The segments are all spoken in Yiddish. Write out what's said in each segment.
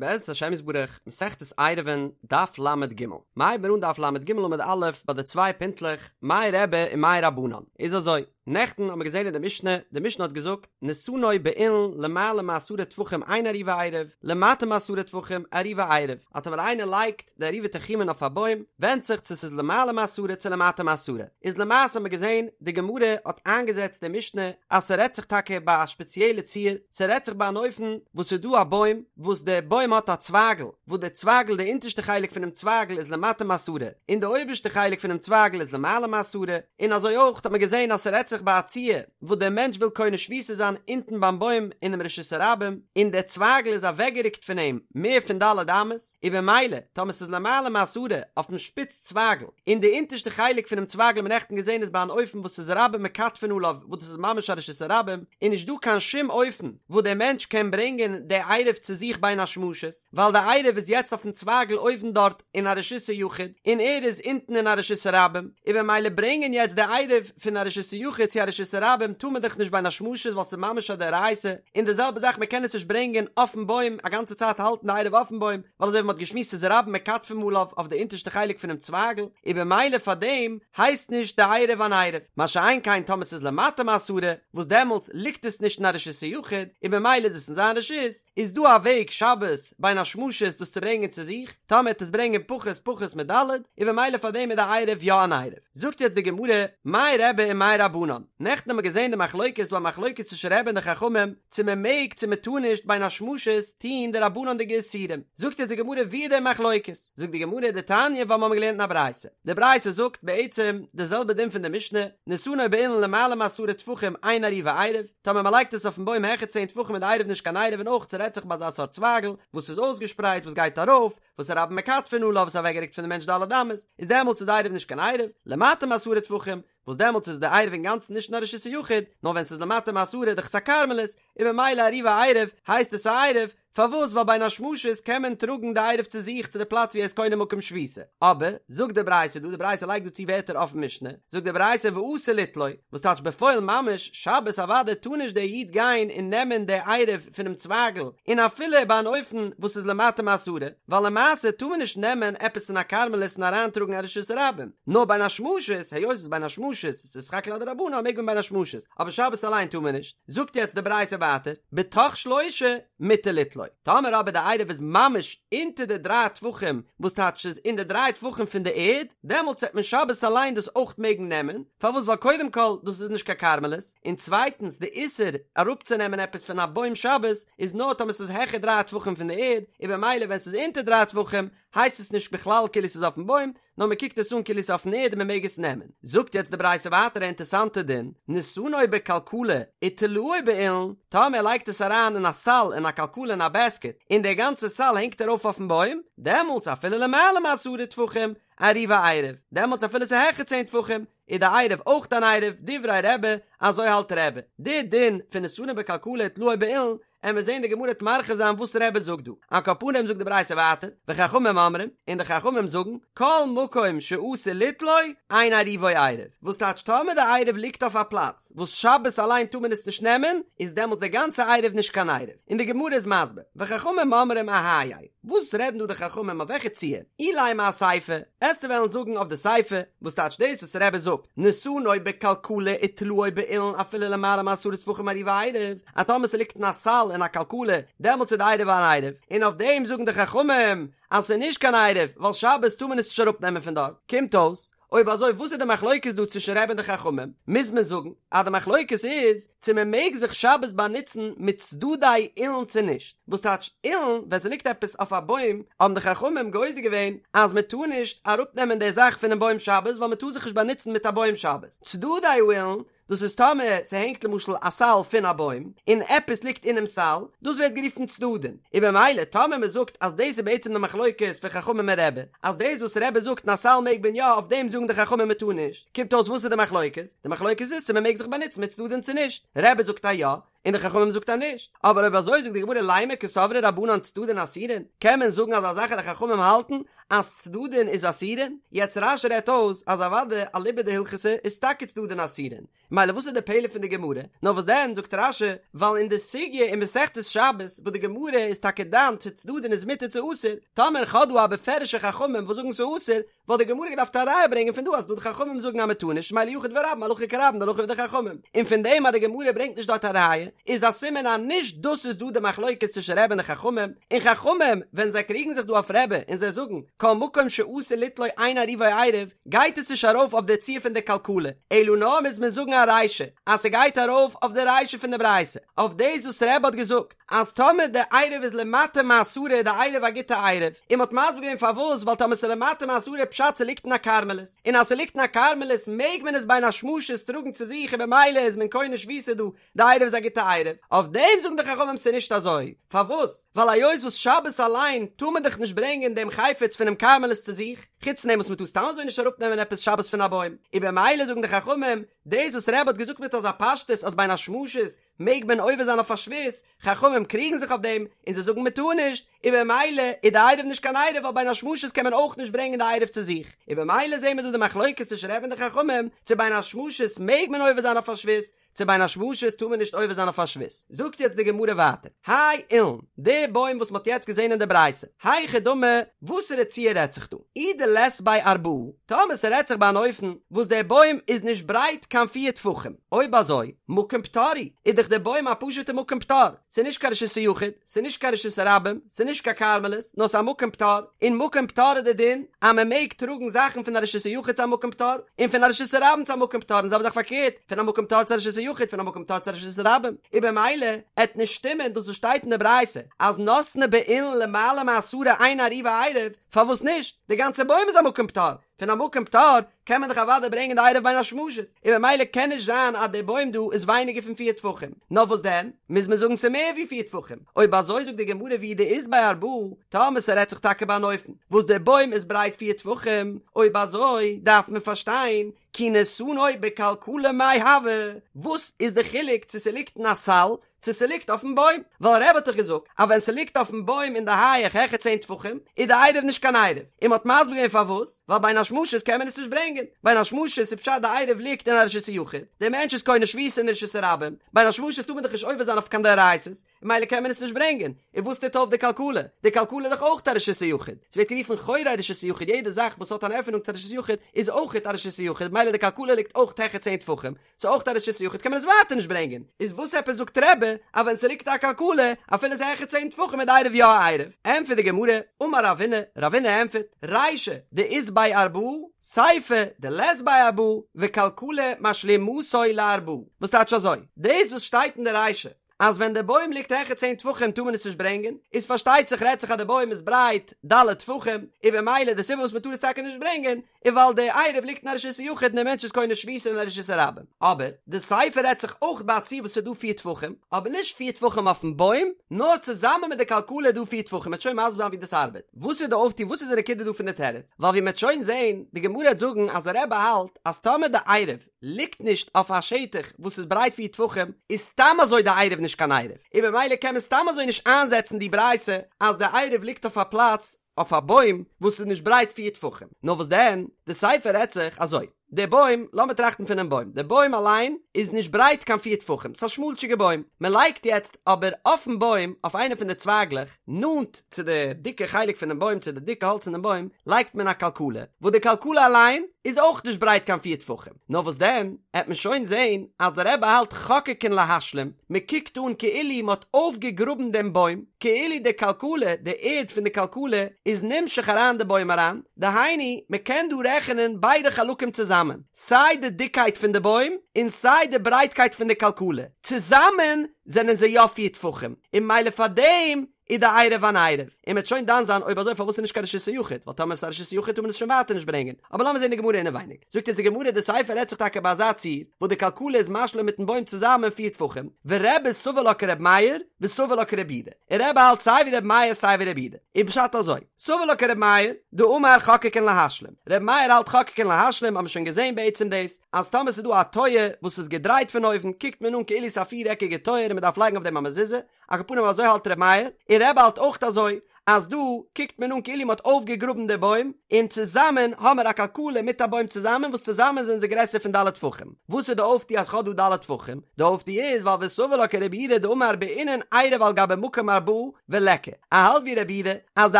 בעזרת השם יתברך, מסכת עירובין, דף ל"ג. מ'הייבן מיר אן דף ל"ג עמוד א' ביי די צוויי פינטלעך, מאי רבי און מאי רבנן. איז אזוי, נעכטן האבן מיר געזען אין די משנה, די משנה האט געזאגט, נתנו באילן למעלה מעשרה טפחים אין עירובו עירוב, למטה מעשרה טפחים עירובו עירוב. אז טאמער איינער לייגט די עירובי תחומין אויף א בוים, ווענדט זיך צו ס'איז למעלה מעשרה צו למטה מעשרה. איז למעשה האבן מיר געזען, די גמרא האט איינגעזעצט די משנה אז ס'רעדט זיך טאקע ביי א שפעציעלע ציור, ס'רעדט זיך ביי אן אופן וואס ס'איז דא א בוים וואס די בוים האט א צווייגל וואס די צווייגל די אונטערשטע חלק פונעם צווייגל איז למטה מעשרה און די אויבערשטע חלק פונעם צווייגל איז למעלה מעשרה און אזוי אויך האט מען געזען אז ס'רעדט זיך ביי א ציור וואס דער מענטש וויל קונה שביתה זיין אונטן ביים בוים אינעם רשות הרבים און דער צווייגל איז אוועקגערוקט פון אים מער פון ד' אמות. און במילא טאמער ס'איז למעלה מעשרה אויפן שפיץ צווייגל, און די אונטערשטע חלק פונעם צווייגל האט מען נעכטן געזען איז ביי אן אופן וואס ס'איז רבים מכתפין עליו וואס דאס איז ממש א רשות הרבים, איז נישט דא קיין שום אופן וואס דער מענטש קען ברענגען די עירוב צו זיך בין השמשות, ווייל די עירוב איז יעצט אויפן צווייגל אויבן דארט אין א רשות היחיד, און ער איז אונטן אין א רשות הרבים, און במילא ברענגען יעצט די עירוב פון א רשות היחיד צו א רשות הרבים טאר מען דאך נישט בין השמשות ווייל ס'איז ממש א דאורייתא, און די זעלבע זאך מען קען עס נישט ברענגען אויפן בוים א גאנצע צייט האלטן די עירוב אויפן בוים, ווייל אזוי ווי מען האט געשמועסט איז רבים מכתפין עליו אויף די אונטערשטע חלק פונעם צווייגל, און במילא פאר דעם הייסט נישט די עירוב אן עירוב, מה שאין כן טאמער ס'איז למטה מעשרה, וואס דעמאלטס ליגט עס נישט אין א רשות היחיד, און במילא איז עס אין זיין רשות, איז דא א וועג שבת בין השמשות דאס צו ברענגען צו זיך, טאמער עט עס ברענגען פחות פחות מד', און במילא פאר דעם איז די עירוב יא אן עירוב. זאגט יעצט די גמרא, מאי רבי ומאי רבנן, נעכטן האבן מיר געזען די מחלוקת, ס'דא א מחלוקת צווישן רבי און די חכמים, צו מען מעג צו מען טאר נישט בין השמשות טוהן דרבנן'דיגע איסורים, זאגט יעצט די גמרא ווי איז די מחלוקת, זאגט די גמרא דתניא ווייל מיר האבן געלערנט אין א ברייתא, די ברייתא זאגט בעצם די זעלבע דין פון די משנה, נתנו באילן למעלה מעשרה טפחים אין עירובו עירוב, טאמער מען לייגט עס אויפן בוים העכער צען טפחים איז די עירוב נישט קיין עירוב און אויך ס'רעדט זיך ביי אזא סארט צווייגל וואס איז אויסגעשפרייט וואס גייט ארויף, וואס רבים מכתפין עליו וואס איז אוועקגערוקט פון די מענטש ד' אמות, איז דעמאלטס איז די עירוב נישט קיין עירוב, למטה מעשרה טפחים, וואס דעמאלטס איז די עירוב אינגאנצן נישט אין א רשות היחיד, נאר ווען ס'איז למטה מעשרה דאך ס'א כרמלית, און במילא עירובו עירוב, הייסט עס א עירוב, פארוואס ווייל בין השמשות קען מען טראגן די עירוב צו זיך צו די פלאץ ווי ער איז קונה מקום שביתה, אבער, זאגט די ברייתא דא, די ברייתא לייגט דא צו ווערטער אויפן משנה, זאגט די ברייתא ואסור ליטלו, וואס טייטש בפועל ממש, שבת אוודאי טאר נישט דער איד גיין און נעמען די עירוב פונעם צווייגל, און אפילו ביי אן אופן וואס איז למטה מעשרה, ווייל למעשה טאר מען נישט נעמען עפעס פון א כרמלית און אריינטראגן א רשות הרבים, נאר בין השמשות, היות ס'איז בין השמשות, ס'איז סך הכל א דרבנן מעג מען בין השמשות, אבער שבת אליין טאר מען נישט. זאגט יעצט די ברייתא ווייטער, בתוך שלושה מותר ליטלו, טאמער אבער די עירוב איז ממש אונטער די דריי טפחים, וואס טייטש ס'איז אין די דריי טפחים פון די ערד, דעמאלטס וועט מען שבת אליין דאס אויך מעגן נעמען, פארוואס ווייל קודם כל דאס איז נישט קיין כרמלית, און צווייטנס די איסור אראפצונעמען עפעס פון א בוים שבת איז נאר טאמער ס'איז העכער דריי טפחים פון די ערד, און במילא ווען ס'איז אונטער דריי טפחים הייסט עס נישט בכלל כאילו ס'איז אויפן בוים, נאר מ'קוקט עס אן כאילו ס'איז אויפן ערד און מ'מעג עס נעמען. זאגט יעצט די ברייתא ווייטער א אינטערסאנטע דין, נתנו בכלכלה ותלאו באילן, טאמער ער לייגט עס אריין אין א סל אין א כלכלה אין א בעסקעט, און דער גאנצער סל הענגט ארויף אויפן בוים, דעמאלטס אפילו למעלה מעשרה טפחים, עירובו עירוב, דעמאלטס אפילו ס'איז העכער צען טפחים, איז די עירוב אויך אן עירוב, דברי רבי, אזוי האלט רבי. די דין פון נתנו בכלכלה ותלאו באילן, עמיר זעהן די גמרא וועט מרחיב זיין וואס רבי זאגט דא. על כל פנים זאגט די ברייתא ווייטער, וחכמים אומרים, און די חכמים זאגן, כל מקום שאסור ליטלו, אין עירובו עירוב. וואס טייטש טאמער די עירוב ליגט אויף א פלאץ וואס שבת אליין טאר מען עס נישט נעמען, איז דעמאלטס די גאנצע עירוב נישט קיין עירוב. און די גמרא איז מסביר, וחכמים אומרים אהייא וואס רעדן דא די חכמים אויף וועלכע ציור? אילימא אסיפא, עסטו וועלן זאגן אויף די סיפא, וואס טייטש דאס וואס רבי זאגט, נתנו בכלכלה ותלאו באילן אפילו למעלה מעשרה טפחים עירובו עירוב, אז טאמער ס'ליגט אין א סל אין א כלכלה, דעמאלטס איז די עירוב אן עירוב, און אויף דעם זאגן די חכמים אז ס'איז נישט קיין עירוב, ווייל שבת טאר מען עס נישט אראפנעמען פון דארט, קומט אויס אויב אזוי וואס איז די מחלוקת דא צווישן רבי און די חכמים? מוז מען זאגן אז די מחלוקת איז צו מען מעג זיך שבת באנוצן מיט צדדי אילן צו נישט, וואס טייטש אילן ווען ס'ליגט עפעס אויף א בוים האבן די חכמים גוזר געווען אז מען טאר נישט אראפנעמען די זאך פונעם בוים שבת ווייל מען טאר זיך נישט באנוצן מיט א בוים שבת, צדדי האילן דאס איז טאמער ס'הענגט למשל א סל פון א בוים און עפעס ליגט אינעם סל, דאס ווערט גערופן צדדין, און במילא טאמער מ'זאגט אז דאס איז בעצם די מחלוקת פון חכמים און רבי, אז דאס וואס רבי זאגט אין א סל מעג מען יא אויף דעם זאגן די חכמים מ'טאר נישט, קומט אויס וואס איז די מחלוקת? די מחלוקת איז צו מ'מעג זיך באנוצן מיט צדדין צו נישט, רבי זאגט אז יא, און די חכמים זאגט אז נישט, אבער אויב אזוי זאגט די גמרא לימא קסברי רבנן צדדין אסורין, קען מען זאגן אזא זאך אז די חכמים האלטן אז צדדין איז אסורין? יעצט רש"י רעדט אויס אז אוודאי אליבא דהלכתא איז טאקע צדדין אסורין, מילא וואס איז די פלא פון די גמרא? נאר וואס דען זאגט רש"י, ווייל אין די סוגיא אין מסכת שבת וואס די גמרא איז טאקע דן צו צדדין איז מותר צו אסור, טאמער כ'האב דא א בפירוש'ע חכמים וואס זאגן ס'אסור, וואלט די גמרא געדארפט א ראיה ברענגען פון דא אז דא די חכמים זאגן אז מ'טאר נישט, מילא יחיד ורבים הלכה כרבים די הלכה ווי די חכמים, און פון דעם אז די גמרא ברענגט נישט דארט א ראיה, איז א סימן אז נישט דאס איז דא די מחלוקת צווישן רבי און די חכמים, און חכמים ווען זיי קריגן זיך דא אויף רבי און זיי זאגן כל מקום שאסור ליטלו אין עירובו עירוב, גייט עס נישט ארויף אויף די ציור פון די כלכלה, אלא נאר מוז מען זאגן א רישא אז ס'גייט ארויף אויף די רישא פון די ברייתא, אויף דאס וואס רבי האט געזאגט אז טאמער די עירוב איז למטה מעשרה איז די עירוב א גוטע עירוב, און מ'האט מסביר געווען פארוואס ווייל טאמער ס'איז למטה מעשרה פשט ס'ליגט אין א כרמלית, און אז ס'ליגט אין א כרמלית מעג מען עס בין השמשות טראגן צו זיך און במילא איז מען קונה שביתה דא, די עירוב איז א גוטע עירוב, אויף דעם זאגן די חכמים ס'איז נישט אזוי, פארוואס? ווייל היות וואס שבת אליין טאר מען דאך נישט ברענגען דעם חפץ פונעם כרמלית צו זיך, חוץ פון דעם וואס מ'טאר סתם אזוי נישט אראפנעמען עפעס שבת פון א בוים, און במילא זאגן די חכמים, דאס וואס רבי האט געזאגט מיט אזא פשטות אז בין השמשות מעג מען עובר זיין אויף א שבות, חכמים קריגן זיך אויף דעם און זיי זאגן מ'טאר נישט, און במילא איז די עירוב נישט קיין עירוב ווייל בין השמשות קען מען אויך נישט ברענגען די עירוב צו זיך, און במילא זעהן מיר דא די מחלוקת צווישן רבי און די חכמים צו בין השמשות מעג מען עובר זיין אויף א שבות, צו בין השמשות טאר מען נישט עובר זיין אויף א שבות. זאגט יעצט די גמרא ווייטער, האי אילן, די בוים וואס מ'האט יעצט געזען אין די ברייתא, היכי דמי, וואסערע ציור רעדט זיך דא? אי דלית ביה ארבעה, טאמער ס'רעדט זיך ביי אן אופן וואס דער בוים איז נישט ברייט קיין פיר טפחים, אויב אזוי, מקום פטור הוא, איז דאך דער בוים א פשוט'ע מקום פטור, ס'איז נישט קיין רשות היחיד, ס'איז נישט קיין רשות הרבים, ס'איז נישט קיין כרמלית, נאר ס'איז א מקום פטור, און מקום פטור איז די דין אז מען מעג טראגן זאכן פון א רשות היחיד צו א מקום פטור, און פון א רשות הרבים צו א מקום פטור, און זעלבע זאך פארקערט, פון א מקום פטור צו א רשות היחיד, פון א מקום פטור צו א רשות הרבים, און במילא עט נישט שטימען דאס וואס שטייט אין די ברייתא אז נתנו באילן למעלה מעשרה אין עירובו עירוב, פארוואס נישט? די גאנצע בוים איז א מקום פטור, פון א מקום פטור קען מען דאך אוודאי ברענגען די עירוב בין השמשות, און במילא קען נישט זיין אז די בוים דא איז ווייניגער פון פיר טפחים, נאר וואס דען, מוז מען זאגן ס'איז מער ווי פיר טפחים, אויב אזוי זאגט די גמרא ואי דאית ביה ארבעה, טאמער ס'רעדט זיך טאקע ביי אן אופן וואס די בוים איז ברייט פיר טפחים, אויב אזוי דארף מען פארשטיין כי נתנו בכלכלה מאי הוי, וואס איז די חילוק צו ס'ליגט אין א סל צו ס'ליגט אויפן בוים, ווייל רבי האט דאך געזאגט אז ווען ס'ליגט אויפן בוים אין די הייעך העכער צען טפחים איז די עירוב נישט קיין עירוב, און מ'האט מסביר געווען פארוואס, ווייל בין השמשות קען מען עס נישט ברענגען, בין השמשות איז פשט די עירוב ליגט אין א רשות היחיד, דער מענטש איז קונה שביתה אין רשות הרבים, בין השמשות טאר מען דאך נישט עובר זיין אויף קיין דאורייתא'ס, ממילא קען מען עס נישט ברענגען, און וואס טוט אויף די כלכלה? די כלכלה איז דאך אויך א רשות היחיד, ס'ווערט גערופן חורי רשות היחיד, יעדע זאך וואס האט אן עפענונג צו א רשות היחיד איז אויך א רשות היחיד, ממילא די כלכלה ליגט אויך העכער צען טפחים, ס'איז אויך א רשות היחיד קען מען עס ווייטער נישט ברענגען, איז וואס עפעס זאגט רבי אז ווען ס'ליגט א כלכלה אפילו ס'איז העכער צען טפחים איז די עירוב יא א עירוב? ענטפערט די גמרא, אמר רבינא, רבינא ענטפערט, רישא דאית ביה ארבעה, סיפא דלית ביה ארבעה, וכלכלה משלימתו לארבעה, וואס טייטש אזוי? דאס וואס שטייט אין די רישא אז ווען די בוים ליגט העכער צען טפחים טאר מען עס נישט ברענגען, איז פארשטייט זיך רעדט זיך אז די בוים איז ברייט ד' טפחים, און במילא די סיבה וואס מען טאר עס טאקע נישט ברענגען איז ווייל די עירוב ליגט אין א רשות היחיד און דער מענטש איז קונה שביתה אין א רשות הרבים. אבער די סיפא רעדט זיך אויך ביי א ציור וואס איז דא פיר טפחים, אבער נישט פיר טפחים אויפן בוים, נאר צוזאמען מיט די כלכלה איז דא פיר טפחים, מ'עט שוין מסביר זיין ווי דאס ארבעט. וואס איז די אויפטו וואס איז די נקודה דא פון די תירוץ? ווייל ווי מ'עט שוין זען, די גמרא העט זאגן אז רבי האלט אז טאמער די עירוב ליגט נישט אויף א שטח וואס איז ברייט פיר טפחים, איז סתם אזוי די עירוב נישט קיין עירוב, און במילא קען מען סתם אזוי נישט איינזעצן די ברייתא אז די עירוב ליגט אויף א פלאץ, אויף א בוים, וואס איז נישט ברייט פיר טפחים. נאר וואס דען, די סיפא רעדט זיך אזוי, די בוים, לאמיר טראכטן פונעם בוים, די בוים אליין איז נישט ברייט קיין פיר טפחים, ס'איז א שמאלטשיגע בוים, מען לייגט יעצט אבער אויפן בוים, אויף איינע פון די צווייגלעך, נאנט צו די דיקע חלק פונעם בוים, צו די דיקע האלץ פונעם בוים, לייגט מען א כלכלה, וואס די כלכלה אליין איז אויך נישט ברייט קיין פיר טפחים. נאר וואס דען, העט מען שוין זען אז דער רבי האלט חוקקין להשלים, מען קוקט אן כאילו מען האט אויפגעגראבן דעם בוים, כאילו די כלכלה, די ערד פון די כלכלה, איז נמשך אריין די בוים אריין, דהיינו, מען קען דא רעכענען ביידע חלקים צוזאמען, סיי די דיקקייט פון די בוים, און סיי די ברייטקייט פון די כלכלה, צוזאמען זענען זיי יא פיר טפחים, און ממילא פאר דעם איז די עירוב אן עירוב, און מ'וועט שוין דן זיין אויב אזוי פארוואס איז נישט קיין רשות היחיד, ווייל טאמער עס איז א רשות היחיד טאר מען עס שוין ווייטער נישט ברענגען, אבער לאמיר זען די גמרא אינעווייניג, זאגט אונז די גמרא די סיפא רעדט זיך טאקע ביי אזא ציור, וואס די כלכלה איז משלים מיטן בוים צוזאמען פיר טפחים, ורבי סבר לה כר' מאיר, וסבר לה כרבי יהודה, און רבי האלט סיי ווי רבי מאיר סיי ווי רבי יהודה, איז פשט אזוי, סבר לה כרבי מאיר, דאמר חוקקין להשלים, רבי מאיר האלט חוקקין להשלים האבן מיר שוין געזען בעצם דאס, אז טאמער ס'איז דא א טויער וואס איז געדרייט פון אויבן קוקט מען אן כאילו ס'איז א פיר עקיגע טויער און מ'דארף לייגן אויף דעם א מזוזה, על כל פנים אזוי האלט רבי מאיר, און רבי האלט אויך אזוי, אז דא קוקט מען אן כאילו מ'האט אויפגעגראבן די בוים, און צוזאמען האמער א כלכלה מיט א בוים צוזאמען וואס צוזאמען זענען זיי גרעסער פון ד' טפחים. וואס איז די אויפטו אז כ'האב דא ד' טפחים? די אויפטו איז ווייל וסבר לה כרבי יהודה דאמר בעינן עירוב על גבי מקום ארבעה וליכא. ער האלט ווי רבי יהודה אז די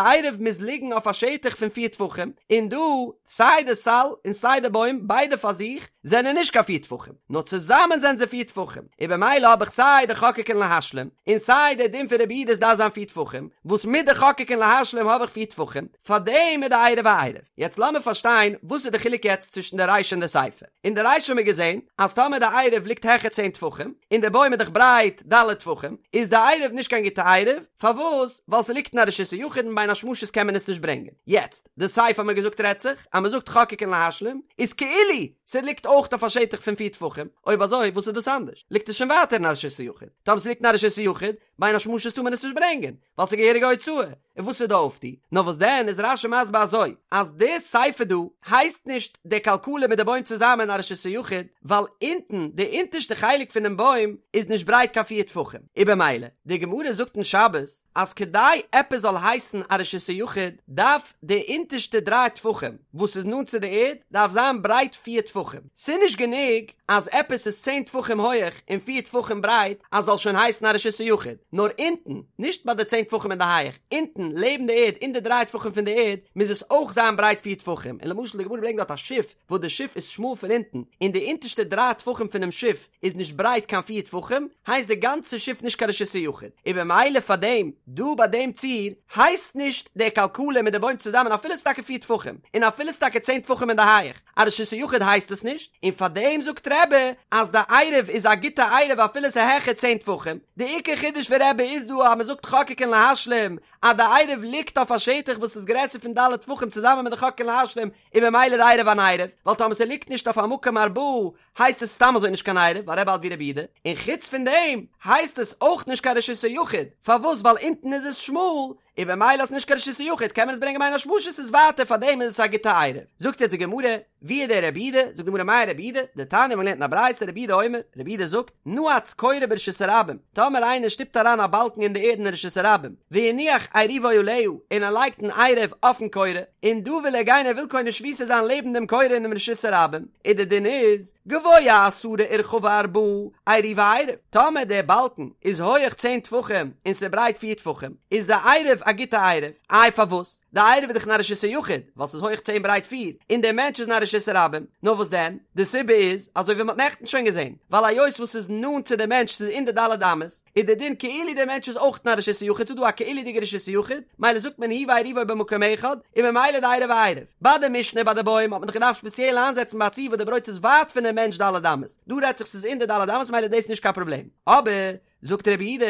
עירוב מוז ליגן אויף א שטח פון פיר טפחים, און דא סיי די סל און סיי די בוים ביידע פאר זיך זענען נישט קיין פיר טפחים, נאר צוזאמען זענען זיי פיר טפחים, און במילא האב איך סיי די חוקקין להשלים, און סיי די דין פון רבי יהודה עס דארף זיין פיר טפחים, וואס מיט די חוקקין להשלים האב איך פיר טפחים, פארדעם איז די עירוב א עירוב. יעצט לאמיר פארשטיין וואס איז די חילוק יעצט צווישן די רישא און די סיפא. אין די רישא האבן מיר געזען אז טאמער די עירוב ליגט העכער צען טפחים, און די בוים איז דאך ברייט ד' טפחים, איז די עירוב נישט קיין גוטע עירוב, פארוואס? ווייל ס'ליגט אין א רשות היחיד און בין השמשות קען מען עס נישט ברענגען. יעצט, די סיפא האבן מיר געזאגט רעדט זיך אז מ'זאגט חוקקין להשלים, איז כאילו ס'ליגט אויך אויף א שטח פון פיר טפחים, אויב אזוי וואס איז דאס אנדערש? ליגט עס שוין ווייטער אין א רשות היחיד. טאמער ס'ליגט אין א רשות היחיד, בין השמשות טאר מען עס נישט ברענגען, ווייל ס'איז געהעריגע הוצאה, און וואס איז די אויפטו? נאר וואס דען איז רש"י מסביר אזוי, אז די סיפא דא הייסט נישט די כלכלה מיט די בוים צוזאמען א רשות היחיד, ווייל אונטן, די אונטערשטע חלק פונעם בוים, איז נישט ברייט קיין פיר טפחים, און במילא, די גמרא זאגט אין שבת, אז כדי עפעס זאל הייסן א רשות היחיד, דארף די אונטערשטע דריי טפחים וואס איז נאנט צו די ערד, דארף זיין ברייט פיר טפחים, ס'איז נישט גענוג אז עפעס איז צען טפחים הויעך און פיר טפחים ברייט אז זאל שוין הייסן א רשות היחיד, נאר אונטן, נישט ביי די צען טפחים אין די הייעך, אונטן לעבן די ערד אין די דריי טפחים פון די ערד מוז עס אויך זיין ברייט פיר טפחים, און למשל די גמרא ברענגט דארט א שיף וואס די שיף איז שמאל פון אונטן און די אונטערשטע דריי טפחים פונעם שיף איז נישט ברייט קיין פיר טפחים, הייסט די גאנצע שיף נישט קיין רשות היחיד, און במילא פאר דעם דא ביי דעם ציור הייסט נישט די כלכלה מיט די בוים צוזאמען אפילו ס'איז טאקע פיר טפחים, און אפילו ס'איז טאקע צען טפחים אין די הייעך, א רשות היחיד הייסט עס נישט, און פאר דעם זאגט רבי אז די עירוב איז א גוטע עירוב אפילו ס'איז העכער צען טפחים, די עיקר חידוש פון רבי איז דא אז מ'זאגט חוקקין להשלים אז די עירוב ליגט אויף א שטח וואס איז גרעסער פון ד' טפחים צוזאמען מיט די חוקקין להשלים און במילא די עירוב אן עירוב, ווייל טאמער ס'ליגט נישט אויף א מקום ארבעה הייסט עס סתם אזוי נישט קיין עירוב ווייל רבי האלט ווי רבי יהודה, און חוץ פון דעם הייסט עס אויך נישט קיין רשות היחיד, פארוואס ווייל אונטן איז עס שמאל, און במילא איז נישט קיין רשות היחיד קען מען עס ברענגען בין השמשות איז ווייטער פאר דעם איז עס א גוטע עירוב. זאגט יעצט די גמרא, ווי איז דער רבי יהודה? זאגט די גמרא מאי רבי יהודה, דתניא מ'האט געלערנט אין א ברייתא רבי יהודה אומר, רבי יהודה זאגט, נעץ קורה ברשות הרבים, טאמער איינער שטופט אריין א באלקן אין די ערד אין רשות הרבים, והניח עירובו עליה, און ער לייגט אן עירוב אויפן קורה, און דא וויל ער גיין ער וויל קונה שביתה זיין לעבן דעם קורה אינעם רשות הרבים, און די דין איז, גבוה עשרה ורחבה ארבעה, עירובו עירוב, טאמער דער באלקן איז הויעך צען טפחים און ס'ברייט פיר טפחים, איז די עירוב א גוטע עירוב, איי פארוואס? די עירוב איז דאך אין א רשות היחיד, ווייל ס'איז הויעך צען ברייט פיר, און דער מענטש איז אין א רשות הרבים, נאר וואס דען? די סיבה איז, אזוי ווי מ'האט נעכטן שוין געזען, ווייל היות וואס ס'איז נאנט צו די מענטש ס'איז אין די ד' אמות, איז די דין כאילו דער מענטש איז אויך אין א רשות היחיד, ס'איז דא א כאילו'דיגע רשות היחיד, מילא זאגט מען הוא ועירובו במקום אחד, און ממילא די עירוב א עירוב. ביי די משנה ביי די בוים האט מען דאך געדארפט ספעציעל איינזעצן ביי א ציור וואס די ברויט איז ווייט פונעם מענטש ד' אמות, דא רעדט זיך ס'איז אין די ד' אמות מילא איז דאס נישט קיין פראבלעם. אבער, זאגט רבי יהודה,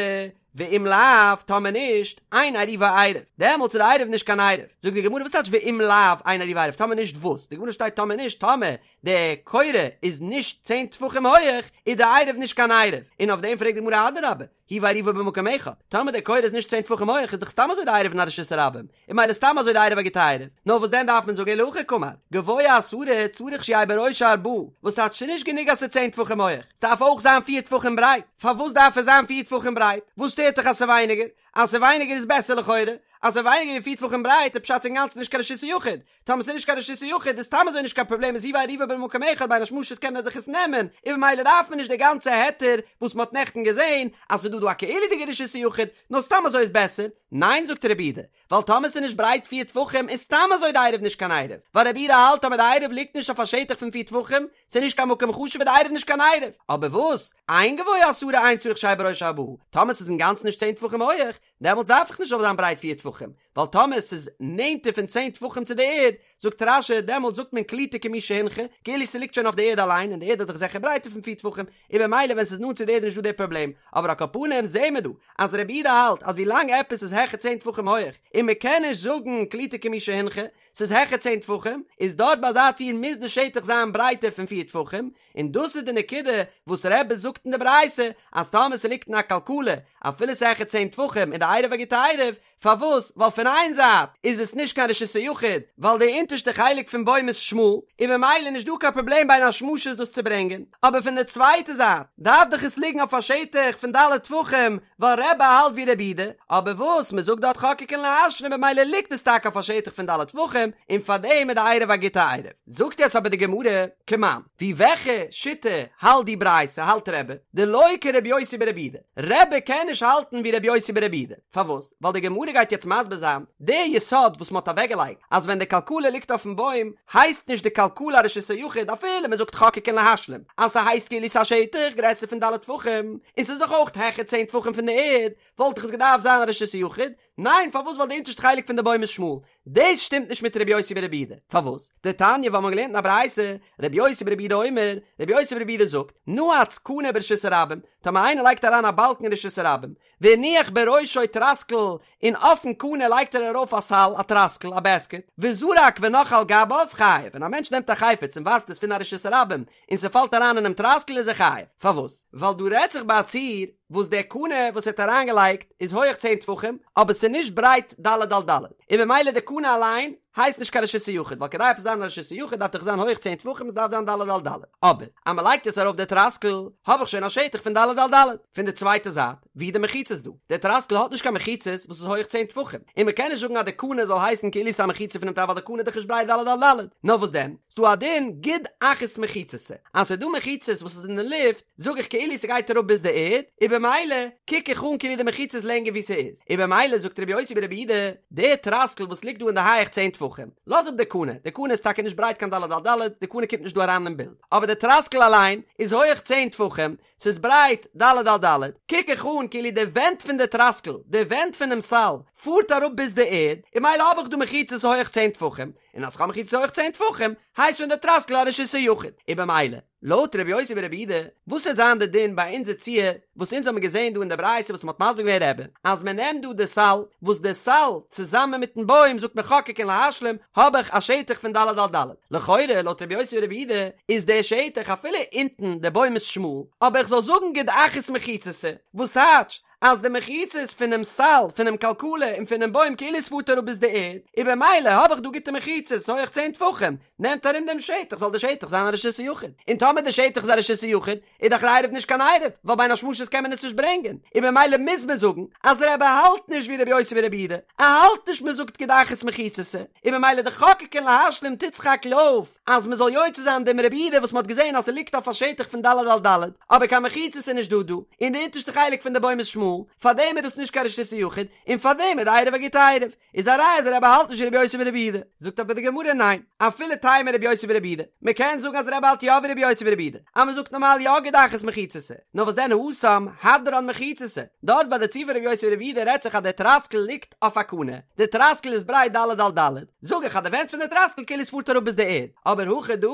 ואם לאו, טאמער נישט, אין עירובו עירוב, דעמאלטס איז די עירוב נישט קיין עירוב. זאגט די גמרא וואס טייטש ואם לאו אין עירובו עירוב, טאמער נישט וואס? די גמרא שטייט טאמער נישט, טאמער די קורה איז נישט צען טפחים הויעך, איז די עירוב נישט קיין עירוב. און אויף דעם פרעגט די גמרא אדרבה, הוא ועירובו במקום אחד, טאמער די קורה איז נישט צען טפחים הויעך איז דאך סתם אזוי די עירוב אין א רשות הרבים, און מילא סתם אזוי די עירוב א גוטע עירוב, נאר וואס דען דארף מען זאגן אלא הכי קאמר, גבוה עשרה צריך שיהא בראשו ארבעה, וואס טייטש ס'נישט גענוג אז ס'איז צען טפחים הויעך, ס'דארף אויך זיין פיר טפחים ברייט, פארוואס דארף עס זיין פיר טפחים ברייט? וואס שטערט דיך אז ס'איז ווייניגער? אז ס'איז ווייניגער איז בעסער לכאורה, אז ס'איז ווייניגער ווי פיר טפחים ברייט איז פשט אינגאנצן נישט קיין רשות היחיד, טאמער ס'איז נישט קיין רשות היחיד איז סתם אזוי נישט קיין פראבלעם איז הוא ועירובו במקום אחד בין השמשות קען ער דאך עס נעמען, און במילא דארף מען נישט די גאנצע היתר וואס מ'האט נעכטן געזען אז ס'איז דא דא א כאילו'דיגע רשות היחיד, נאר סתם אזוי איז בעסער, ניין זאגט רבי יהודה, ווייל טאמער ס'איז נישט ברייט פיר טפחים איז סתם אזוי די עירוב נישט קיין עירוב, ווייל רבי יהודה האלט טאמער די עירוב ליגט נישט אויף א שטח פון פיר טפחים, ס'איז נישט קיין מקום חשוב איז די עירוב נישט קיין עירוב, אבער וואס? אין גבוה עשרה אין צריך שיהא בראשו ארבעה, טאמער ס'איז אינגאנצן נישט צען טפחים הויעך, דעמאלטס דארף איך נישט זאל זיין ברייט פיר טפחים. טפחים, ווייל טאמער ס'איז נענטער פון צען טפחים צו די ערד, זאגט רש"י, דעמאלט זאגט מען קלוטה כמי שהונחה, כאילו ס'ליגט שוין אויף די ערד אליין, און די ערד איז דאך זיכער ברייטער פון פיר טפחים, און במילא ווען ס'איז נאנט צו די ערד איז נישטא די פראבלעם, אבער על כל פנים זעהן מיר דא אז רבי יהודה האלט אז ווילאנג עפעס איז העכער צען טפחים הויעך און מ'קען נישט זאגן קלוטה כמי שהונחה, ס'איז העכער צען טפחים, איז דארט ביי אזא ציור מוז די שטח זיין ברייטער פון פיר טפחים, און דאס איז די נקודה וואס רבי זאגט אין די ברייתא אז טאמער ס'ליגט אין א כלכלה אפילו ס'איז העכער צען טפחים איז די עירוב א גוטע עירוב, פארוואס? ווייל פון איין זייט איז עס נישט קיין רשות היחיד ווייל די אונטערשטע חלק פון בוים איז שמאל און ממילא נישט דא קיין פראבלעם בין השמשות דאס צו ברענגען, אבער פון די צווייטע זייט דארף דאך עס ליגן אויף א שטח פון ד' טפחים ווייל רבי האלט ווי רבי יהודה, אבער וואס מען זאגט דארט חוקקין להשלים במילא ליגט עס טאקע אויף א שטח פון ד' טפחים און פארדעם איז די עירוב א גוטע עירוב. זאגט יעצט אבער די גמרא, כמאן, ווי וועלכע שיטה האלט די ברייתא האלט רבי, דלא כרבי יוסי ברבי יהודה, רבי קען נישט האלטן ווי רבי יוסי ברבי יהודה, פארוואס? ווייל די גמרא גייט יעצט מסביר זיין די יסוד וואס מען האט אוועקגעלייגט אז ווען די כלכלה ליגט אויפן בוים הייסט נישט די כלכלה א רשות היחיד אפילו מען זאגט חוקקין להשלים אז ס'הייסט כאילו ס'איז א שטח גרעסער פון ד' טפחים און ס'איז דאך אויך העכער צען טפחים פון די ערד וואלט דאך עס געדארפט זיין א רשות היחיד, ניין פארוואס ווייל די אונטערשטע חלק פון די בוים איז שמאל, דאס שטימט נישט מיט רבי יוסי ברבי יהודה, פארוואס? דתניא ווייל מ'האט געלערנט אין א ברייתא, רבי יוסי ברבי יהודה אומר, רבי יוסי ברבי יהודה זאגט, נעץ קנה ברשות הרבים, טאמער איינער לייגט אריין א באלקן אין רשות הרבים, והניח בראשו טרסקל, און אויפן קנה לייגט ער ארויף א סל, א טרסקל, א בעסקעט, וזרק ונח על גביו, חייב, ווען א מענטש נעמט א חפץ און ווארפט עס פון א רשות הרבים, און ס'פאלט אריין אינעם טרסקל איז ער חייב, פארוואס? ווייל דא רעדט זיך ביי א ציור וואס דער קנה וואס ער האט אריינגעלייגט איז הויעך צען טפחים, אבער ס'איז נישט ברייט ד' על ד', און במילא די קנה אליין הייסט נישט קיין רשות היחיד, ווייל כדי עפעס זיין א רשות היחיד דארף דאך זיין הויעך צען טפחים, עס דארף זיין ד' על ד', אבער אז מ'לייגט עס ארויף די טרסקל האב איך שוין א שטח פון ד' על ד'. פון די צווייטע זייט, ווי די מחיצות דא? דער טרסקל האט נישט קיין מחיצות וואס איז הויעך צען טפחים, און מ'קען נישט זאגן אז די קנה זאל הייסן כאילו ס'איז א מחיצה פונעם טרסקל ווייל די קנה איז דאך נישט ברייט ד' על ד', נאר וואס דען? ס'דא א דין גוד אחית מחיצתא, אז ס'איז דא מחיצות וואס איז אין די לופט, זאג איך כאילו ס'גייט אראפ ביז די ערד, און במילא קוק איך אן כאילו די מחיצה איז לענגער ווי ס'איז, און במילא זאגט רבי יוסי ברבי יהודה, די טרסקל וואס ליגט דא אין די הייעך צען טפחים, לאז אפ די קנה, די קנה איז טאקע נישט ברייט קיין ד' על ד', די קנה קומט נישט דא אריין אין בילד, אבער די טרסקל אליין איז הויעך צען טפחים, ס'איז ברייט ד' על ד', קוק איך אן כאילו די ווענט פון די טרסקל, די ווענט פונעם סל, פארט אראפ ביז די ערד, און מילא האב איך דא מחיצות הויעך צען טפחים, און אז כ'האב מחיצות הויעך צען טפחים, הייסט שוין די טרסקל א רשות היחיד, און במילא, לויט רבי יוסי ברבי יהודה, וואס וועט זיין די דין ביי אונזער ציור, וואס אונז האבן געזען דא אין די ברייתא וואס מ'האט מסביר געווען רבי, אז מ'נעמט דא די סל, וואס די סל צוזאמען מיטן בוים זאגט מען חוקקין להשלים, האב איך א שטח פון ד' על ד'. לכאורה, לויט רבי יוסי ברבי יהודה, איז דער שטח אפילו אונטן די בוים איז שמאל, אבער איך זאל זאגן גוד אחית מחיצתא, וואס טייטש, אז די מחיצות פונעם סל, פונעם כלכלה און פונעם בוים כאילו עס פארט אראפ ביז די ערד, און במילא האב איך דא גוטע מחיצות הויעך צען טפחים, נעמט ארום דעם שטח, זאל די שטח זיין א רשות היחיד. און טאמער די שטח איז א רשות היחיד, איז דאך דער עירוב נישט קיין עירוב, ווייל בין השמשות קען מען עס נישט ברענגען, און במילא מוז מען זאגן אז רבי האלט נישט ווי רבי יוסי ברבי יהודה, ער האלט נישט מען זאגט גוד אחית מחיצתא, און במילא די חוקקין להשלים טוט סך הכל אויף אז מען זאל יוצא זיין דעם רבי יהודה וואס מען האט געזען אז ס'ליגט אויף א שטח פון ד' על ד', אבער קיין מחיצות איז נישט דא דא, און די אונטערשטע חלק פון די בוים איז שמאל, פארדעם איז דאס נישט קיין רשות היחיד, און פארדעם איז די עירוב א גוטע עירוב. איז א ראיה אז רבי האלט נישט ווי רבי יוסי ברבי יהודה, זאגט אבער די גמרא ניין, אפילו תימא רבי יוסי ברבי יהודה, מען קען זאגן אז רבי האלט יא ווי רבי יוסי ברבי יהודה, אז מען זאגט נארמאל יא גוד אחית מחיצתא, נאר וואס דען התם הדרן מחיצתא, דארט ביי די ציור פון רבי יוסי ברבי יהודה רעדט זיך אז דער טראסקל ליגט אויף א קנה, די טראסקל איז ברייט ד' על ד', זאג איך אז די ווענט פון די טראסקל כאילו עס פארט אראפ ביז די ערד, אבער הכא דא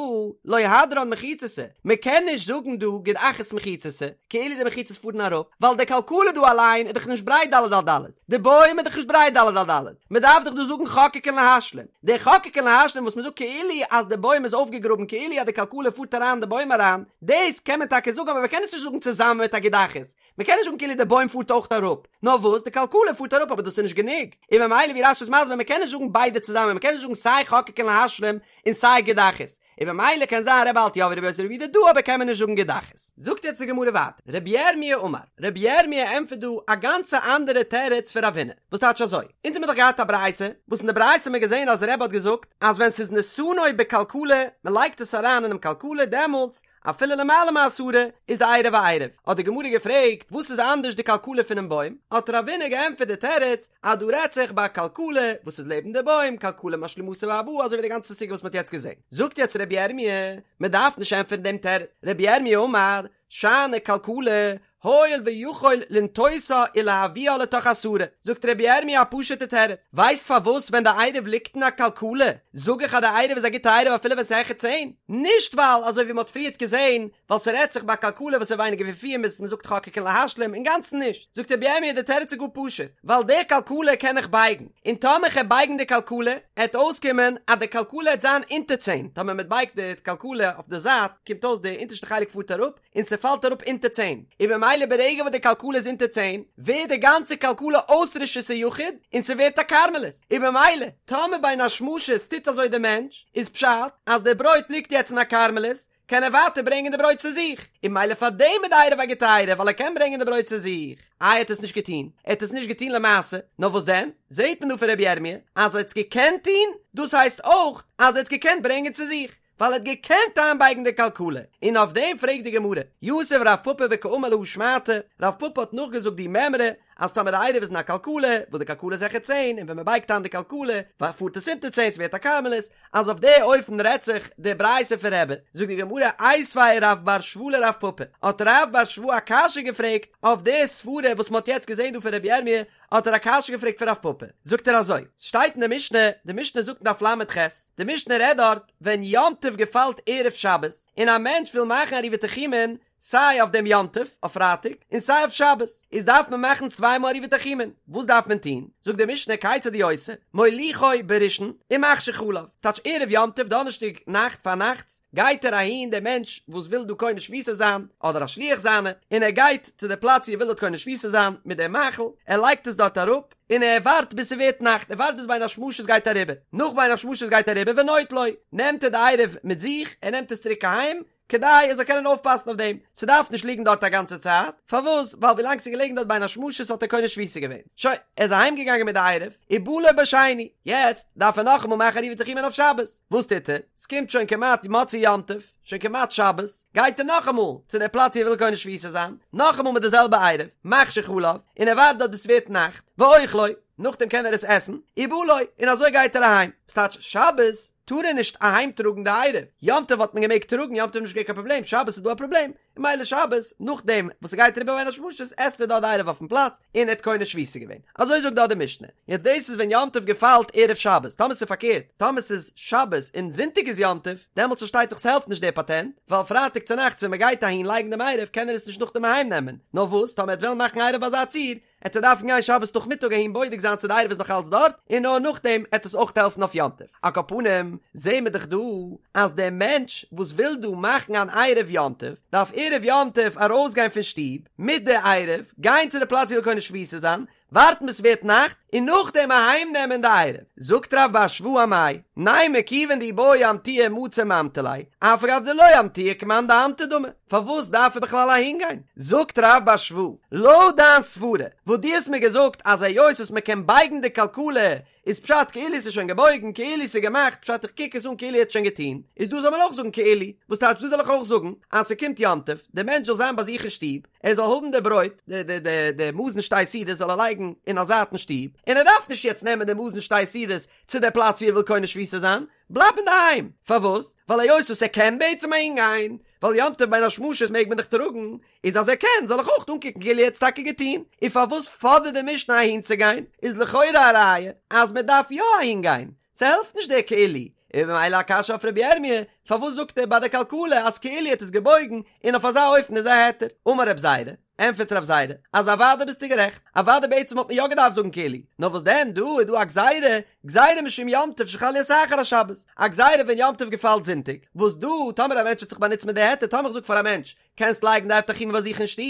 לא הדרן מחיצתא, מען קען נישט זאגן דא גוד אחית מחיצתא, כאילו די מחיצות פארן אראפ, ווייל די כלכלה דא אליין איז דאך נישט ברייט ד' על ד', די בוים איז דאך נישט ברייט ד' על ד', מען דארף דאך דא זאגן חוקקין להשלים, די חוקקין להשלים וואס מען זאגט כאילו אז די בוים איז אויפגעגראבן כאילו אז די כלכלה פארט אריין אין די בוים אריין, דאס קען מען טאקע זאגן אבער מען קען עס נישט זאגן צוזאמען מיט א גוד אחית, מען קען נישט זאגן כאילו די בוים פארט אויך אראפ, נאר וואס די כלכלה פארט אראפ אבער דאס איז נישט גענוג, און ממילא ווי רש"י איז מסביר מען קען נישט זאגן ביידע צוזאמען מען קען נישט זאגן סיי חוקקין להשלים און סיי גוד אחית, און ממילא קען זיין רבי האלט יא ווי רבי יוסי ברבי יהודה דא אבער קען מען נישט זאגן גוד אחית. זאגט יעצט די גמרא ווייטער, רבי ירמי' אמר, רבי ירמי' ענטפערט דא א גאנצע אנדערע תירוץ פון רב הונא, וואס טייטש אזוי, אונז האמיר דאך געהאט א ברייתא, וואס אין די ברייתא האמיר געזען אז רבי האט געזאגט אז ווען ס'איז נתנו בכלכלה, מ'לייגט עס אריין אינעם כלכלה דעמאלטס אפילו למעלה מעשרה איז די עירוב א עירוב, האט די גמרא געפרעגט וואס איז אנדערש די כלכלה פונעם בוים, האט רב הונא געענטפערט די תירוץ אז דא רעדט זיך ביי א כלכלה וואס איז לעבן די בוים, כלכלה משלימתו בארבעה אזוי ווי די גאנצע סוגיא וואס מען האט יעצט געזען. זאגט יעצט רבי ירמי', מען דארף נישט ענטפערן דעם תירוץ, רבי ירמי' אמר, שאני כלכלה. הואיל ויכול לנטותה ולהביאה לתוך עשרה, זאגט רבי ירמי' א פשוטע תירוץ, ווייסט פארוואס ווען די עירוב ליגט אין א כלכלה זאג איך אז די עירוב איז א גוטע עירוב אפילו ווען ס'איז העכער צען? נישט ווייל אזוי ווי מ'האט פריערט געזען ווייל ס'רעדט זיך ביי א כלכלה וואס איז ווייניגער ווי פיר מ'איז מ'זאגט חוקקין להשלים, אינגאנצן נישט, זאגט רבי ירמי' די תירוץ איז גאר פשוט, ווייל די כלכלה קען איך בייגן, און טאמער כ'על בייגן די כלכלה, עט אויסקומען אז די כלכלה עט זיין אונטער צען, טאמער מ'בייגט די כלכלה אויף די זייט, קומט אויס די אונטערשטע חלק פארט אראפ, און ס'פאלט אראפ אונטער צען, און במילא ברגע וואס די כלכלה איז אונטער צען, ווערט די גאנצע כלכלה אויס רשות היחיד, און ס'ווערט א כרמלית, און במילא, טאמער בין השמשות טוט אזוי די מענטש, איז פשט אז די ברויט ליגט יעצט אין א כרמלית, קען ער ווייטער ברענגען די ברויט צו זיך, און במילא פאר דעם איז די עירוב א גוטע עירוב ווייל ער קען ברענגען די ברויט צו זיך. איי ער האט עס נישט געטון? ער האט עס נישט געטון למעשה, נאר וואס דען? זעט מען דא פון רבי ירמי' אז ער האט עס געקענט טון, דאס הייסט אויך אז ער האט געקענט ברענגען צו זיך, ווייל ער האט געקענט איינבייגן די כלכלה, און אויף דעם פרעגט די גמרא, יתיב רב פפא וקאמר להא שמעתא, רב פפא האט נאכגעזאגט די מימרא, אז טאמער די עירוב איז אין א כלכלה, וואס די כלכלה איז העכער צען, און ווען מען בייגט איין די כלכלה, פארט עס אונטער צען, ס'ווערט א כרמלית, אז אויף די אופן רעדט זיך די ברייתא פון רבי, זאגט די גמרא, איתיביה רב בר שבא לרב פפא, האט רב בר שבא א קשיא געפרעגט אויף די סברה וואס מען האט יעצט געזען דא פון רבי ירמי', האט ער א קשיא געפרעגט פון רב פפא, זאגט ער אזוי, ס'שטייט אין די משנה, די משנה זאגט אין דף ל"ח, די משנה רעדט דארט ווען יום טוב געפאלט ערב שבת, און א מענטש וויל מאכן עירובי תחומין, סיי אויף דעם יום טוב, אויף פרייטאג, און סיי אויף שבת, איז דארף מען מאכן צוויי מאל עירובי תחומין, וואס דארף מען טון? זאגט די משנה כיצד הוא עושה, מוליכו בראשון ומחשיך עליו, טייטש ערב יום טוב דאנערשטאג נאכט פארנאכטס, גייט ער אהין דער מענטש וואס וויל דא קונה שביתה זיין, אדער א שליח זיינע, און ער גייט צו די פלאץ ווי ער וויל דארט קונה שביתה זיין מיט דעם מאכל, ער לייגט עס דארט אראפ, און ער ווארט ביז ס'ווערט נאכט, ער ווארט ביז בין השמשות גייט אריבער, נאך בין השמשות גייט אריבער ונוטלו, נעמט ער די עירוב מיט זיך, ער נעמט עס צוריק אהיים, כדי ער זאל קענען אויפפאסן אויף דעם, ס'דארף נישט ליגן דארט א גאנצע צייט, פארוואס? ווייל ווילאנג ס'איז געלעגן דארט בין השמשות האט ער קונה שביתה געווען, שוין, ער איז אהיים געגאנגען מיט די עירוב, ובא לו בשני, יעצט דארף ער נאכאמאל מאכן עירובי תחומין אויף שבת, וואס טוט ער? ס'קומט שוין כמעט מוצאי יום טוב, שוין כמעט שבת, גייט ער נאכאמאל צו דער פלאץ ווי ער וויל קונה שביתה זיין, נאכאמאל מיט די זעלבע עירוב, מחשיך עליו, און ער ווארט דארט ביז ס'ווערט נאכט, ואוכלו, נאכדעם קען ער עס עסן, ובא לו, און אזוי גייט ער אהיים, ס'טייטש שבת טאר ער נישט אהיים טראגן די עירוב, יום טוב האט מען געמעגט טראגן, יום טוב איז נישט געווען קיין פראבלעם, שבת איז דא א פראבלעם, און ממילא שבת, נאכדעם וואס ס'גייט אריבער בין השמשות עסט ער דארט די עירוב אויפן פלאץ, און ער האט קונה שביתה געווען. אזוי זאגט דארט די משנה. יעצט דאס איז ווען יום טוב געפאלט ערב שבת, טאמער ס'איז פארקערט, טאמער ס'איז שבת און זונטאג איז יום טוב, דעמאלטס פארשטייט זיך ס'העלפט נישט דער פאטענט, ווייל פרייטאג צונאכטס ווען מ'גייט אהין לייגן דעם עירוב קען ער עס נישט נאכדעם אהיים נעמען, נאר וואס טאמער ער וועט וועלן מאכן עירוב ביי אזא ציור, עט ער דארפן גיין שבת נאכמיטאג אהין בודק זיין צו די עירוב איז נאך אלץ דארט, און נאר נאכדעם עט עס אויך העלפן אויף יום טוב. על כל פנים, זעהן מיר דאך דא אז דער מענטש וואס וויל דא מאכן אן עירוב יום טוב, דארף ערב יום טוב ארויסגיין פון שטוב מיט די עירוב, גיין צו די פלאץ ווי ער וויל קונה שביתה זיין, ווארטן ביז ס'ווערט נאכט, און נאכדעם אהיים נעמען די עירוב. זאגט רב בר שבא אמאי, נימא כיוון דאי בעי אמטויי מצי ממטי ליה, אף על גב דלא אמטויי כמאן דאמטי דמי. פארוואס דארף ער בכלל אהינגיין? זאגט רב בר שבא, לויט דיין סברה וואס דו האסט מיר געזאגט אז היות וואס מען קען בייגן די כלכלה איז פשט כאילו ס'איז שוין געבויגן כאילו ס'איז געמאכט פשט איך קוק עס אן כאילו ער האט שוין געטון, איז דא זאל מען אויך זאגן כאילו, וואס טייטש דא זאל איך אויך זאגן אז ס'קומט יום טוב, דער מענטש זאל זיין ביי זיך אין שטוב, ער זאל האבן די ברויט, די די די די מזון שתי סעודות זאל ער לייגן אין א זייט אין שטוב, און ער דארף נישט יעצט נעמען די מזון שתי סעודות צו די פלאץ ווי ער וויל קונה שביתה זיין, בלייב אינדערהיים! פארוואס? ווייל היות וואס ער קען בעצם אהינגיין, ווייל יום טוב בין השמשות מעג מען דאך טראגן, איז אז ער קען זאל איך אויך אנקוקן כאילו ער האט עס טאקע געטון, און פארוואס פאדערט די משנה אהינצוגיין? איז לכאורה א ראיה אז מען דארף יא אהינגיין, ס'העלפט נישט דער כאילו, און ממילא א קשיא אויף רבי ירמי', פארוואס זאגט ער ביי די כלכלה אז כאילו ער האט עס געבויגן, און אויף אזא אופן איז א היתר? אמר רב זירא, ענטפערט רב זירא, אז אוודאי ביסטו גערעכט, אוודאי בעצם וואלט מען יא געדארפט זאגן כאילו, נאר וואס דען דא איז דא א גזירה, גזירה משום יום טוב שחל להיות אחר השבת, א גזירה ווען יום טוב געפאלט זונטאג, וואס דא טאמער א מענטש האט זיך באנוצט מיט די היתר, טאמער איך זאג פאר א מענטש, קענסט לייגן די עירוב תחומין ביי זיך אין שטוב,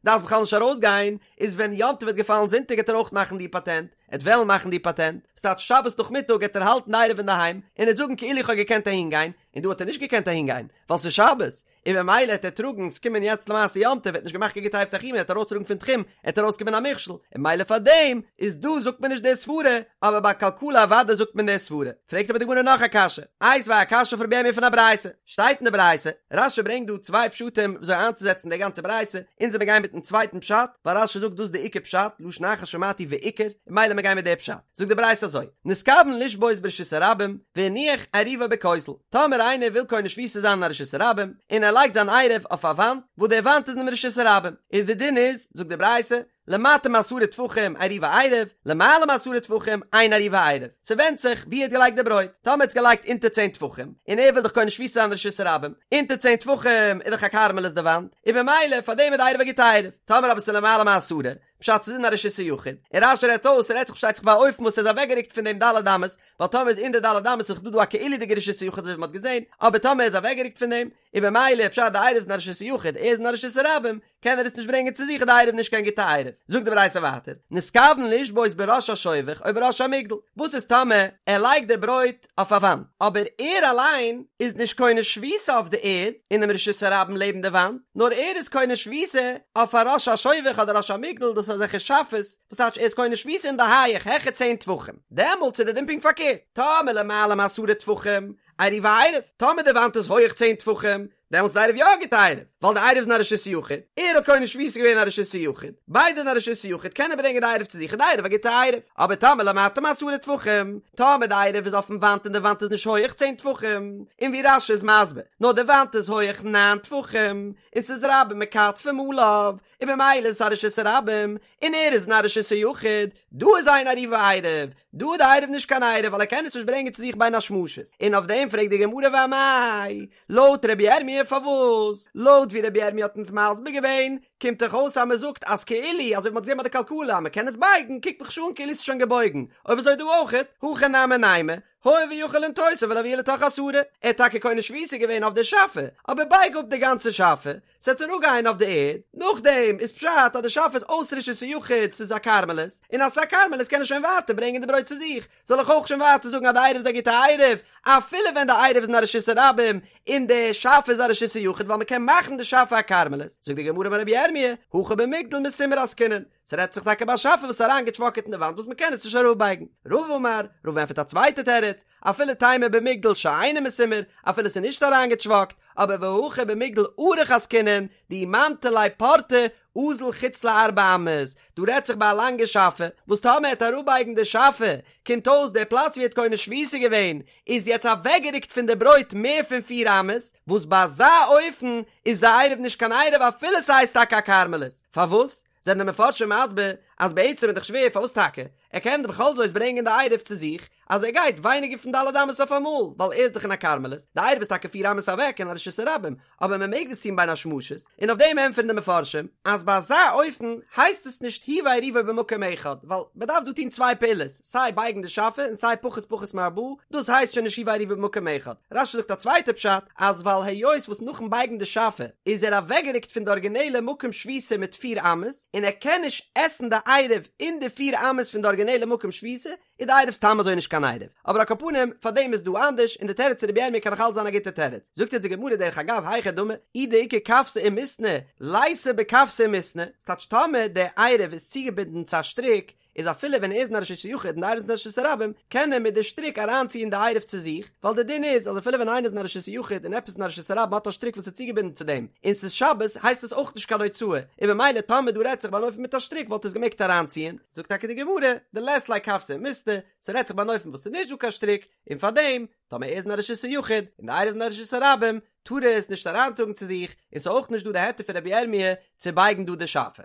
דארפסט בכלל נישט ארויסגיין, איז ווען יום טוב וועט געפאלן זונטאג וועט ער אויך מאכן די פאטענט, ער וועט וועלן מאכן די פאטענט, ס'טייטש שבת נאכמיטאג וועט ער האלטן די עירוב אינדערהיים, און ער וועט זאגן כאילו איך האב געקענט אהינגיין, און דא האט ער נישט געקענט אהינגיין, ווייל ס'איז שבת, און ממילא העט ער טראגן, ס'קומען יעצט למעשה יום טוב, ער האט נישט געמאכט קיין גוטע עירוב תחומין, ער העט ארויסטראגן פון תחום, העט ארויסקומען א מכשול, און ממילא פאר דעם איז דא זאגט מען נישט די סברה, אבער ביי כלכלה אוודאי זאגט מען די סברה. פרעגט אבער די גמרא נאך א קשיא, איתיביה א קשיא אויף רבי ירמי' פון א ברייתא, שטייט אין די ברייתא, רש"י ברענגט דא צוויי פשטים וויאזוי איינצוזעצן די גאנצע ברייתא, אונז וועמיר גיין מיטן צווייטן פשט, ווייל רש"י זאגט דאס איז די עיקר פשט, לשון אחר שמעתי ועיקר, און ממילא מיר גייען מיט די פשט. זאגט די ברייתא אזוי, נתכוון לשבות ברשות הרבים, והניח עירובו בכותל, טאמער איינער וויל קונה שביתה זיין אין א רשות הרבים, און ער. לייגט זיין עירוב אויף א וואנט, וואס די וואנט איז אינעם רשות הרבים, און די דין איז, זאגט די ברייתא, למטה מעשרה טפחים עירובו עירוב, למעלה מעשרה טפחים אין עירובו עירוב. ס'ווענדט זיך ווי ער האט געלייגט די ברויט. טאמער ער האט עס געלייגט אונטער צען טפחים, און ער וויל דאך קונה שביתה זיין רשות הרבים, אונטער צען טפחים איז דאך א כרמלית די וואנט, און במילא פאר דעם איז די עירוב א גוטע עירוב. טאמער אבער ס'איז למעלה מעשרה, פשט ס'איז אין א רשות היחיד, און רש"י רעדט אויס, ס'רעדט זיך פארשטייט זיך ביי א אופן וואס ער איז אוועקגערוקט פון דעם ד' אמות, ווייל טאמער איז אין די ד' אמות איז דאך דא דא א כאילו'דיגע רשות היחיד אזוי ווי מ'האט געזען, אבער טאמער ער איז אוועקגערוקט פון דעם, און במילא פשט די עירוב איז אין א רשות היחיד, ער איז אין א רשות הרבים, קען ער עס נישט ברענגען צו זיך איז די עירוב נישט קיין גוטע עירוב. זאגט די ברייתא ווייטער, נתכוון לשבות בראש השובך או בראש המגדל, וואס איז טאמער ער לייגט די ברויט אויף א וואנט, אבער ער אליין איז נישט קונה שביתה אויף די ערד אינעם רשות הרבים לעבן די וואנט, נאר ער איז קונה שביתה אויף א ראש השובך אדער ראש המגדל, דאס איז אזעלכע שאפעס, וואס טייטש ער איז קונה שביתה אין די הייעך העכער צען טפחים, דעמאלטס איז די דין פונקט פארקערט, טאמער למעלה מעשרה טפחים, עירובו עירוב, טאמער די וואנט איז הויעך צען טפחים, דעמאלטס איז די עירוב יא א גוטע עירוב, ווייל די עירוב איז אין א רשות היחיד, ער האט קונה שביתה געווען אין א רשות היחיד, ביידע אין א רשות היחיד קען ער ברענגען די עירוב צו זיך איז די עירוב א גוטע עירוב, אבער טאמער למטה מעשרה טפחים, טאמער די עירוב איז אויפן וואנט און די וואנט איז נישט הויעך צען טפחים, און ווי רש"י איז מסביר, נאר די וואנט איז הויעך ניין טפחים, און ס'איז רבים מכתפים עליו, און במילא איז עס א רשות הרבים, און ער איז אין א רשות היחיד, דא איז אין עירובו עירוב, דא איז די עירוב נישט קיין עירוב ווייל ער קען עס נישט ברענגען צו זיך בין השמשות, און אויף דעם פרעגט די גמרא ואמאי, לויט רבי ירמי' פארוואס? לויט ווי רבי ירמי' האט אונז מסביר געווען, קומט דאך אויס אז מען זאגט אז כאילו, אזוי ווי מען האט געזען ביי די כלכלה אז מען קען עס בייגן, קוקט מיך שוין אן כאילו עס איז שוין געבויגן, אויב אזוי דא אויכעט, הכא נמי נימא, הואיל ויכול לנטותה ולהביאה לתוך עשרה, ער האט טאקע קונה שביתה געווען אויף די שאפע, אבער בייג אפ די גאנצע שאפע, ס'וועט אראפגיין אויף די ערד, נאכדעם איז פשט אז די שאפע איז אויס רשות היחיד, ס'איז א כרמלית, און אז ס'איז א כרמלית קען ער שוין ווייטער ברענגען די ברויט צו זיך, זאל איך אויך שוין ווייטער זאגן אז די עירוב איז א גוטע עירוב, אפילו ווען די עירוב איז אין א רשות הרבים און די שאפע איז א רשות היחיד ווייל מ'קען מאכן די שאפע א כרמלית, זאגט די גמרא אמר רבי ירמי', הכא במגדל מסומר עסקינן, ס'רעדט זיך טאקע ביי א שאפע וואס איז אריינגעטשוואקעט אין די וואנט וואס מ'קען עס נישט אראפבייגן. רבא אמר, רבא ענטפערט א צווייטע תירוץ, אפילו תימא במגדל שאינו מסומר, אפילו ס'איז נישט אריינגעטשוואקט, אבער והכא במגדל ארוך עסקינן, דאי ממטי ליה פורתא, אזיל חוץ לארבע אמות, דא רעדט זיך ביי א לאנגע שאפע, וואס טאמער ער וועט אראפבייגן די שאפע, קומט אויס דער פלאץ ווי ער האט קונה שביתה געווען, איז יעצט אוועקגערוקט פון די ברויט מער פון פיר אמות, וואס ביי אזא אופן איז די עירוב נישט קיין עירוב אפילו ס'הייסט טאקע א כרמלית. פארוואס? זענען די מפרשים מסביר אז בעצם איז דאך שווער פארוואס טאקע ער קען בכל זאת ברענגען די עירוב צו זיך אז ער גייט ווייניגער פון ד' אמות אויף אמאל ווייל ער איז דאך אין א כרמלית, די עירוב איז טאקע פיר אמות אוועק אין א רשות הרבים אבער מען מעג דאס טון בין השמשות, און אויף דעם ענטפערן די מפרשים אז ביי אזא אופן הייסט עס נישט הוא ועירובו במקום אחד ווייל מען דארף דא טון צוויי פעולות סיי בייגן די שאפע און סיי פחות פחות מארבעה דאס הייסט שוין נישט הוא ועירובו במקום אחד. רש"י זאגט א צווייטע פשט אז ווייל היות וואס נאכן בייגן די שאפע איז ער אוועקגערוקט פון די ארגינעלע מקום שביתה מיט פיר אמות און ער קען נישט עסן די עירוב אין די פיר אמות פון די ארגינעלע מקום שביתה איז די עירוב סתם אזוי נישט קיין עירוב אבער על כל פנים פאר דעם איז דא אנדערש און די תירוץ פון רבי ירמי' קען נאך אלץ זיין א גוטע תירוץ זאגט אונז די גמרא דרך אגב היכי דמי אי דאיכא כוותא ומתנא ליתא בכוותא ומתנא ס'טייטש טאמער די עירוב איז צוגעבינדן צו א שטריק איז אפילו ווען ער איז אין א רשות היחיד און די עירוב איז אין א רשות הרבים, קען ער מיט די שטריק אריינציען די עירוב צו זיך, ווייל די דין איז אז אפילו ווען איינער איז אין א רשות היחיד און עפעס אין א רשות הרבים האט א שטריק וואס איז צוגעבינדן צו דעם, און ס'איז שבת, הייסט עס אויך נישט קיין הוצאה, און ממילא טאמער דא רעדט זיך ביי אן אופן מיט א שטריק וואלט ער עס געמעגט אריינציען. זאגט טאקע די גמרא, דלית ליה כוותא ומתנא, ס'רעדט זיך ביי אן אופן וואס ס'איז נישט דא קיין שטריק, און פארדעם, טאמער ער איז אין א רשות היחיד און די עירוב איז אין א רשות הרבים, טאר ער עס נישט אריינטראגן צו זיך, און ס'איז אויך נישט דא די היתר פון רבי ירמי' צו בייגן דא די שאפע.